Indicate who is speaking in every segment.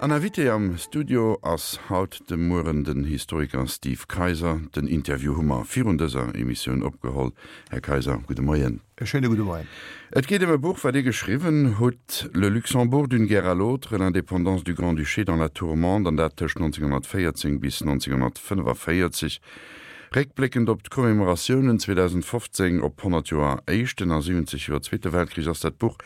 Speaker 1: An Invité am Studio ass haut de Mueren den Historiker Steve Kayser. Den Interview hu mer virun dëser Emissioun opgeholl. Här Kayser, gudde Moien.
Speaker 2: E schéine gudde Moien.
Speaker 1: Et geet ëm e Buch, wat Dir geschriwwen hutt, Le Luxembourg d'une guerre à l'autre, l'indépendance du Grand-Duché dans la tourmente, an dat tëscht 1914 bis 1945. Réckbléckend op d'Commemoratiounen 2015 op 100 Joer Éischten a 70 Joer Zweete Weltkrich ass dat Buch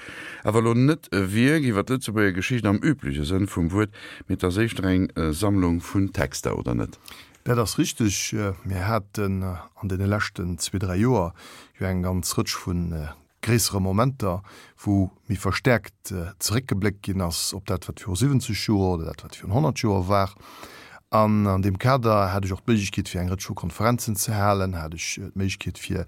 Speaker 1: awer elo net e Wierk iwwer d'Lëtzebuerger Geschicht am übleche Sënn vum Wuert, mee et ass éischter eng Sammlung vun Texter, oder net?
Speaker 2: Dat ass richteg. Mir haten an deene leschten zwee, dräi Joer jo eng ganz Rëtsch vu gréissere Momenter, wou méi verstäerkt zeréckgebléckt ginn ass op dat, wat viru 70 Joer oder dat, wat virun 100 Joer war. An an deem Kader hat ech och d'Méiglechkeet, fir eng Rëtsch vu Konferenzen ze halen, hat ech d'Méiglechkeet, fir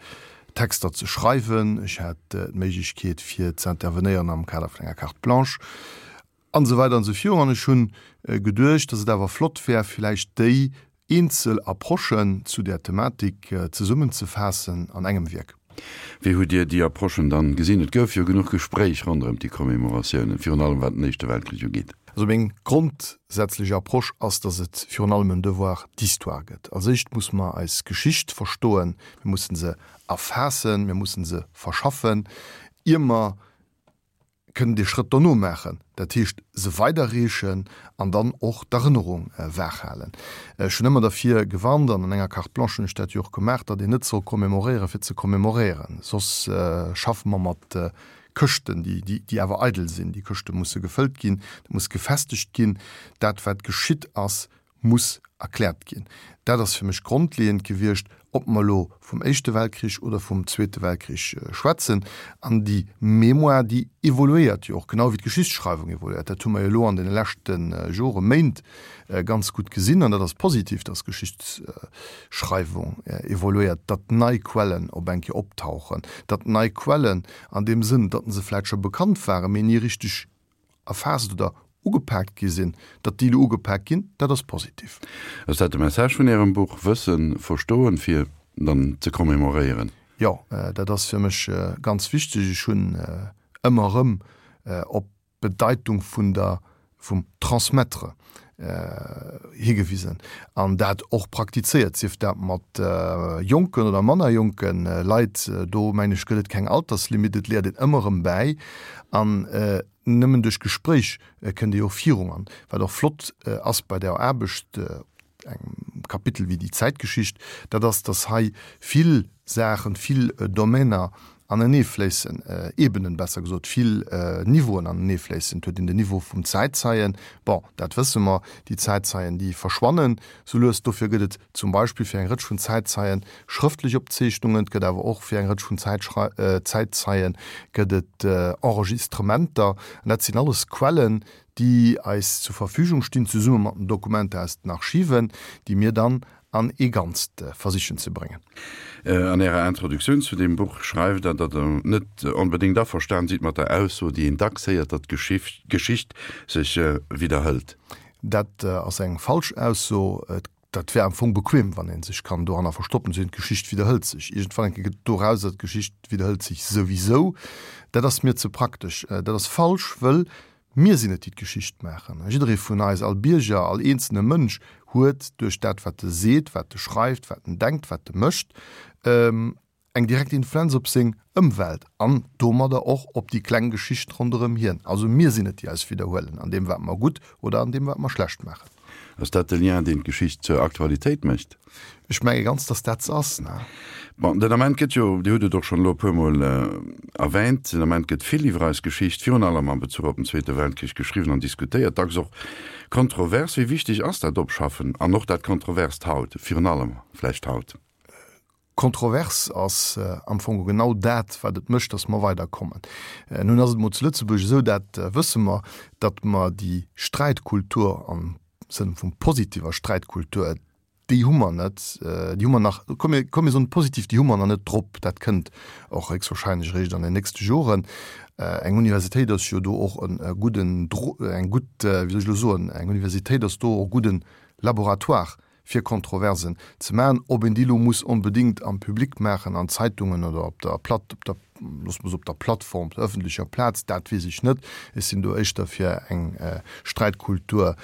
Speaker 2: Texter ze schreiwen, ech hat d'Méiglechkeet, fir ze intervenéieren am Kader vun enger Carte blanche. An esou weider an esou virun. An ech hunn geduecht, dass et awer flott wär, villäicht déi eenzel Approchen zu där Thematik zesummenzefaassen an engem Wierk.
Speaker 1: Wéi hutt Dir déi Approchen dann gesinn? Et gouf jo genuch Gespréich ronderëm déi Commemoratiounen, virun allem wat den Éischte Weltkrich ugeet.
Speaker 2: Also meng grondsätzlech Approche ass, dass et virun allem en Devoir d'histoire gëtt. Als éischt muss mer eis Geschicht verstoen, mir mussen se erfaassen, mir mussen se verschaffen, ier mer kënnen dee Schrëtt dono maachen, dat heescht se weiderreechen an dann och d'Erënnerung waach halen. Ech hunn ëmmer derfir gewarnt, an an enger Carte blanche hunn ech dat jo och gemaach, datt een net soll commémoréieren, fir ze commémoréieren, soss schaffe mer mat Këschten, déi awer eidel sinn. Déi Këschte musse gefëllt ginn, dat muss gefestegt ginn, dat wat geschitt ass, muss erkläert ginn. Dat ass fir mech grondleeënd gewiescht, ob mer elo vum Éischte Weltkrich oder vum Zweete Weltkrich schwätzen. An déi Mémoire, déi evoluéiert jo och, genau wéi d'Geschichtsschreiwung evoluéiert. Dat hu mer jo elo an deene leschte Joren, Méint ganz gutt gesinn. An dat ass positiv, dass d'Geschichtsschreiwung evoluéiert, datt nei Quellen op eng Kéier optauchen, datt nei Quellen an deem Sënn, datt se vläicht scho bekannt waren, mee ni richteg erfaasst oder ugepaakt gi sinn, datt déi elo ugepaakt ginn, dat ass positiv.
Speaker 1: Ass dat de Message vun Ärem Buch, Wëssen, verstoen, fir dann ze commémoréieren?
Speaker 2: Jo, dat ass fir mech ganz wichteg. Ech hunn ëmmer erëm op d'Bedeitung vun der, vum Transmettre higewisen an dat och praktizéiert, sief dat mat jonken oder manner jonke Leit. Do mengen ech gëtt et keng Alterslimite, et léiert een ëmmer erëm bäi an Nëmmen duerch Gespréich kënnt ee jo virun. An wat och flott ass bei der Aarbecht op engem Kapitel wéi déi Zäitgeschicht, dat ass, datt hei vill Saachen, vill Domainer aneneefléissen, Ebenen besser gesot, vill Niveauen aneneefléissen. Et huet een den Niveau vum Zäitzeien, bon, dat wësse mer, déi Zäitzeien, déi verschwannen sou lues. Dofir gëtt et zum Beispill fir eng Rëtsch vun Zäitzeien schrëftlech Opzeechnungen, et gëtt awer och fir eng Rëtsch vun Zäitzeien gëtt et Enregistrementer. An dat sinn alles Quellen, déi eis zur Verfügung stinn, zesumme mat den Dokumenter aus den Archiven, déi mir dann an ee Ganzt versichen ze bréngen.
Speaker 1: An Ärer Introduktioun zu deem Buch schreift Der, datt Der net onbedéngt averstan sidd mat der Ausso, déi een dacks héiert, datt d'Geschicht sech widderhëlt.
Speaker 2: Dat ass eng falsch Ausso. Dat wär am Fong bequem, wann ee sech kann doranner verstoppen, ze soen, d'Geschicht widderhëlt sech. Iergendwann eng Kéier gëtt dorauser, d'Geschicht widderhëlt sech souwisou. Dat ass mir ze praktesch. Dat ass falsch, wëll mir sinn et, déi d'Geschicht maachen. Jidderee vun eis, all Bierger, all eenzelne Mënsch huet duerch dat, wat e seet, wat e schreift, wat en denkt, wat e mécht, eng direkt Influenz op seng Ëmwelt an domadder och op déi kleng Geschicht ronderëm hien. Also mir sinn et, déi eis widderhuelen an deem, wat mer gutt oder an deem, wat mer schlecht maachen.
Speaker 1: Ass dat de Lien, deen d'Geschicht zur Aktualitéit mécht?
Speaker 2: Ech menge ganz, datt dat se ass.
Speaker 1: Bon, den Ament gëtt jo, Dir hutt et och schonn elo e puermol erwähnt, den Ament gëtt vill iwwer eis Geschicht, virun allem am Bezuch op den Zweete Weltkrich, geschriwwen an diskutéiert, dacks och kontrovers. Wéi wichteg ass dat Opschaffen an och dat Kontroverst haut, virun allem vläicht haut?
Speaker 2: Kontrovers ass am Fong genau dat, wat et mécht, datt mer weiderkommen. Nun ass et mol zu Lëtzebuerg esou, dat wësse mer, datt mer déi Sträitkultur am Sënn vum positiver Sträitkultur, déi hu mer net, déi hu mer nach, komm mir, komm mir soen positiv, déi hu mer nach net drop. Dat kënnt och héchstwahrscheinlech eréischt an den nächste Joren. Eng Universitéit ass jo do och e gudden, eng gutt, wéi soll ech elo soen, eng Universitéit ass do och e gudden Laboratoire. fir Kontroversen ze maachen. Ob een déi elo muss onbedéngt am Public maachen, an Zeitungen oder op der Platt, op der, loosse mer soen, op der Plattform, op der ëffentlecher Plaz, dat weess ech net. Ech sinn do éischter fir eng Sträitkultur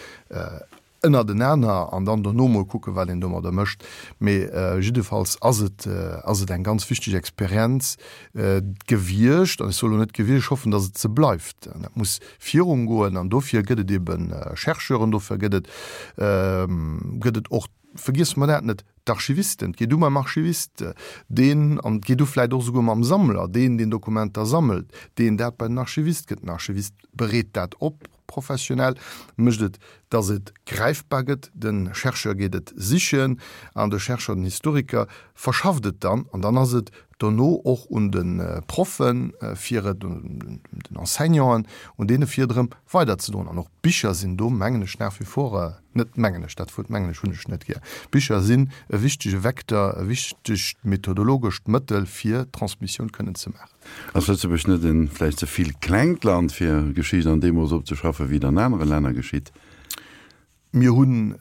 Speaker 2: ënnertenaner an dann dono mol kucken, wat een domadder mécht. Mee jiddefalls ass et, ass et eng ganz wichteg Experienz gewiescht. An ech soe lo net gewiescht, ech hoffen, datt et se bleift. An dat muss virungoen. An dofir gëtt et ebe Chercheuren, dofir gëtt et, gëtt et och, vergiesse mer dat net, d'Archivisten. Et geet u mam Archivist, deen, an et geet u vläicht och esouguer mam Sammler, deen, deen Dokumenter sammelt, deen dat bei den Archivist gëtt. Den Archivist bereet dat op. Professionell mécht et, dass et gräifbar gëtt, de Chercheur geet et sichen an de Chercheur, den Historiker verschafft et dann an dann ass et dono och un de Proffen, fir et, un den Enseignanten, un deene fir et erëm weiderzedroen. An och Bicher sinn do, mengen ech, nach wie vor, net mengen ech, dat Wuert mengen ech hunn ech net gär, Bicher sinn e wichtege Vecteur, e wichtegt methodologescht Mëttel fir Transmissioun kënnen ze maachen.
Speaker 1: Ass Lëtzebuerg net en vläicht ze vill klengt Land fir Geschicht an deem Mooss opzeschaffen, wéi et an anere Länner geschitt?
Speaker 2: Mir hunn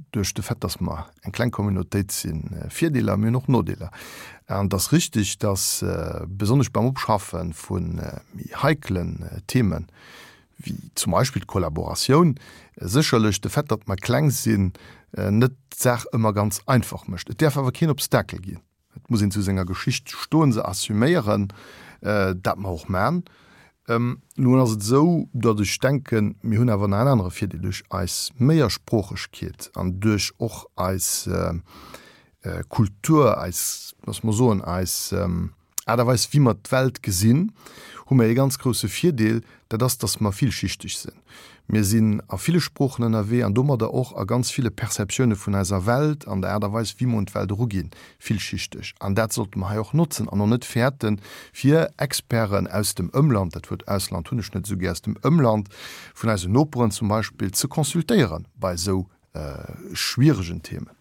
Speaker 2: duerch de Fait, datt mer eng kleng Communautéit sinn, Virdeeler, mir hunn och Nodeeler. An et ass richtig, datt besonnesch beim Opschaffe vu méi heikelen Themen, wéi zum Beispill d'Kollaboratioun, sécherlech de Fait, datt mer kleng sinn, net d'Saach ëmmer ganz einfach mécht. Et däerf awer keen Obstakel ginn. Et muss een zu senger Geschicht stoen, se assuméieren, dat mer och man. Nun ass et esou, datt ech denken, mir hunn awer nach en anere Virdeel, duerch eis Méiersproochegkeet an duerch och eis Kultur, eis, loosse mer soen, eis Aart a Weis, wéi mer d'Welt gesinn, hu mer ee ganz grousse Virdeel, dat ass, datt mer villschichteg sinn. Mir sinn a ville Sproochen ënnerwee an domadder och a ganz ville Perceptioune vun eiser Welt an der Aart a Weis, wéi mer un d'Welt eruginn, villschichteg. An dat sollte mer hei och notzen an och net fäerten, fir Experten aus dem Ëmland, dat Wuert Ausland hunn ech net esou gär, aus dem Ëmland, vun eisen Noperen zum Beispill, ze consultéiere bei esou schwieregen Themen.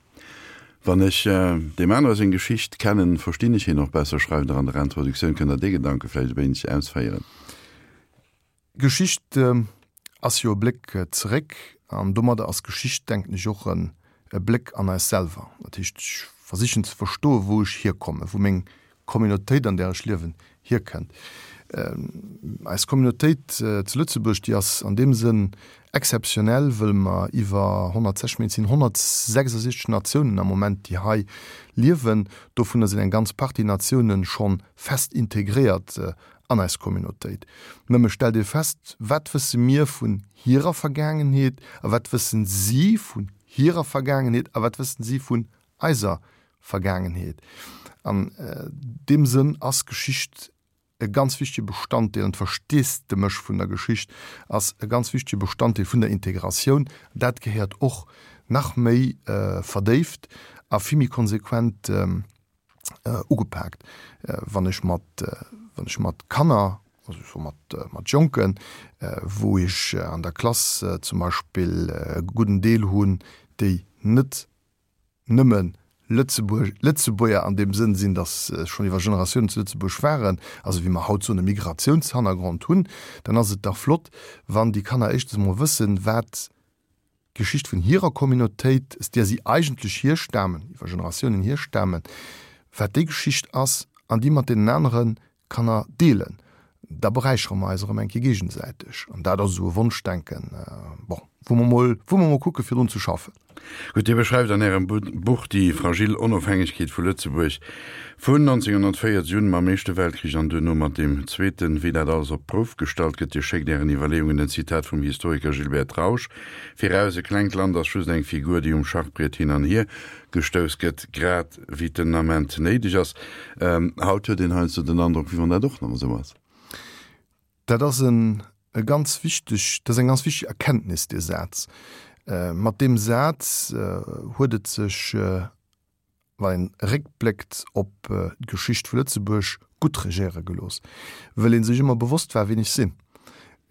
Speaker 1: Wann ech deem anere seng Geschicht kennen, verstinn ech hien och besser, schreift Der an der Introduktioun. Kënnt Der dee Gedanke vläicht e wéineg ausféieren?
Speaker 2: Geschicht ass jo e Bléck zeréck an domadder ass Geschicht, denken ech, och e Bléck an eis selwer. Dat heescht, ech versichen ze verstoen, wou ech hierkommen, wou meng Communautéit, an där ech liewen, hierkënnt. Eis Communautéit zu Lëtzebuerg, déi ass an deem Sënn exzeptionell, wëll mer iwwer 160, mee et sinn 166 Natiounen am Moment, déi hei liewen. Dovunner sinn eng ganz Partie Natiounen scho fest integréiert an eis Communautéit. Nëmme stellt ee fest, wat wësse mir vun hirer Vergaangenheet a wat wëssen si vun hirer Vergaangenheet a wat wëssen si vun eiser Vergaangenheet? An deem Sënn ass Geschicht e ganz wichtege Bestanddeel an d'Versteesdemech vun der Geschicht ass e ganz wichtege Bestanddeel vun der Integratioun. Dat gehéiert och nach méi verdéift a vill méi konsequent ugepaakt. Wann ech mat, wann ech mat Kanner, also ech soe mat, mat Jonken, wou ech an der Klass zum Beispill e gudden Deel hunn, déi net nëmme Lëtzebuerg, Lëtzebuerger an deem Sënn sinn, datt se schonn iwwer Generatiounen zu Lëtzebuerg waren, also wéi mer haut soen, e Migratiounshannergrond hunn, dann ass et dach flott, wann déi Kanner éischtens emol wëssen, wat d'Geschicht vun hirer Communautéit, aus där si eigentlech hierstamen, iwwer Generatiounen hierstamen, wat déi Geschicht ass an déi mat deenen anere Kanner deelen. Da beräichere mer eis erëm eng Kéier géigesäiteg. An dat ass esou e Wonschdenken, bon, wou mer mol, wou mer mol kucke fir drun ze schaffen.
Speaker 1: Gutt, Dir beschreift an Ärem Buch déi fragil Onofhängegkeet vu Lëtzebuerg vun 1940 un, mam Éischte Weltkrich an duerno mat deem Zweeten, wéi dat alles op d'Prouf gestallt gëtt. Dir schéckt Ären Iwwerleeungen en Zitat vum Historiker Gilbert Trausch viraus, E klengt Land ass just eng Figur, déi um Schachbriet hin an hier gestouss gëtt, grad wéi et den Ament néideg ass. Haut huet een heiansdo den Androck, wéi wann dat och nach esou ass.
Speaker 2: Dat ass en e ganz wichteg, dat ass eng ganz wichteg Erkenntnis, dee Saz. Mat deem Saz huet et sech, wann een eréckbléckt op d'Geschicht vu Lëtzebuerg, gutt regéiere gelooss, wëll ee sech ëmmer bewosst war, wien ech sinn.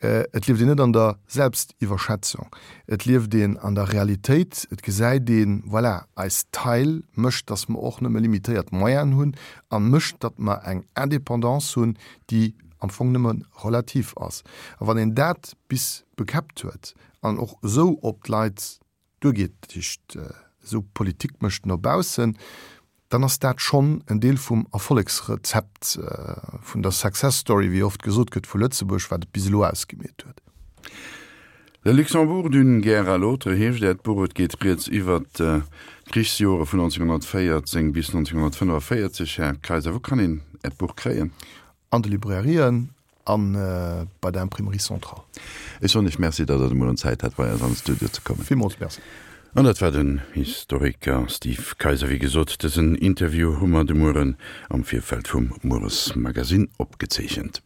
Speaker 2: Et lieft een net an der Selbstiwwerschätzung, et lieft een an der Realitéit, et gesäit een, voilà, eis Taille mécht, datt mer och nëmme limitéiert Moyenen hunn a mécht, datt mer eng Indépendance hunn, déi am Fong nëmme relativ ass. A wann een dat bis bekäppt huet an och esou op d'Leit duergeet, dat heescht. esou Politik mécht no baussen, dann ass dat schonn en Deel vum Erfollegsrezept, vun der Success Story, wéi oft gesot gëtt, vu Lëtzebuerg, wat et bis elo ausgemeet huet.
Speaker 1: Le Luxembourg d'une guerre à l'autre heescht Äert Buch. Et geet rieds iwwert d'Krichsjore vun 1914 bis 1945. Här Kayser, wou kann een Äert Buch kréien?
Speaker 2: An de Librairien a bei der Imprimerie Centrale.
Speaker 1: Ech soen Iech Merci, datt Der de Mueren Zäit hat, bei eis an de Studio ze kommen.
Speaker 2: Villmools Merci.
Speaker 1: An dat war den Historiker Steve Kayser. Wéi gesot, dësen Interview hu mer de Mueren am Virfeld vum Mueresmagazin opgezeechent.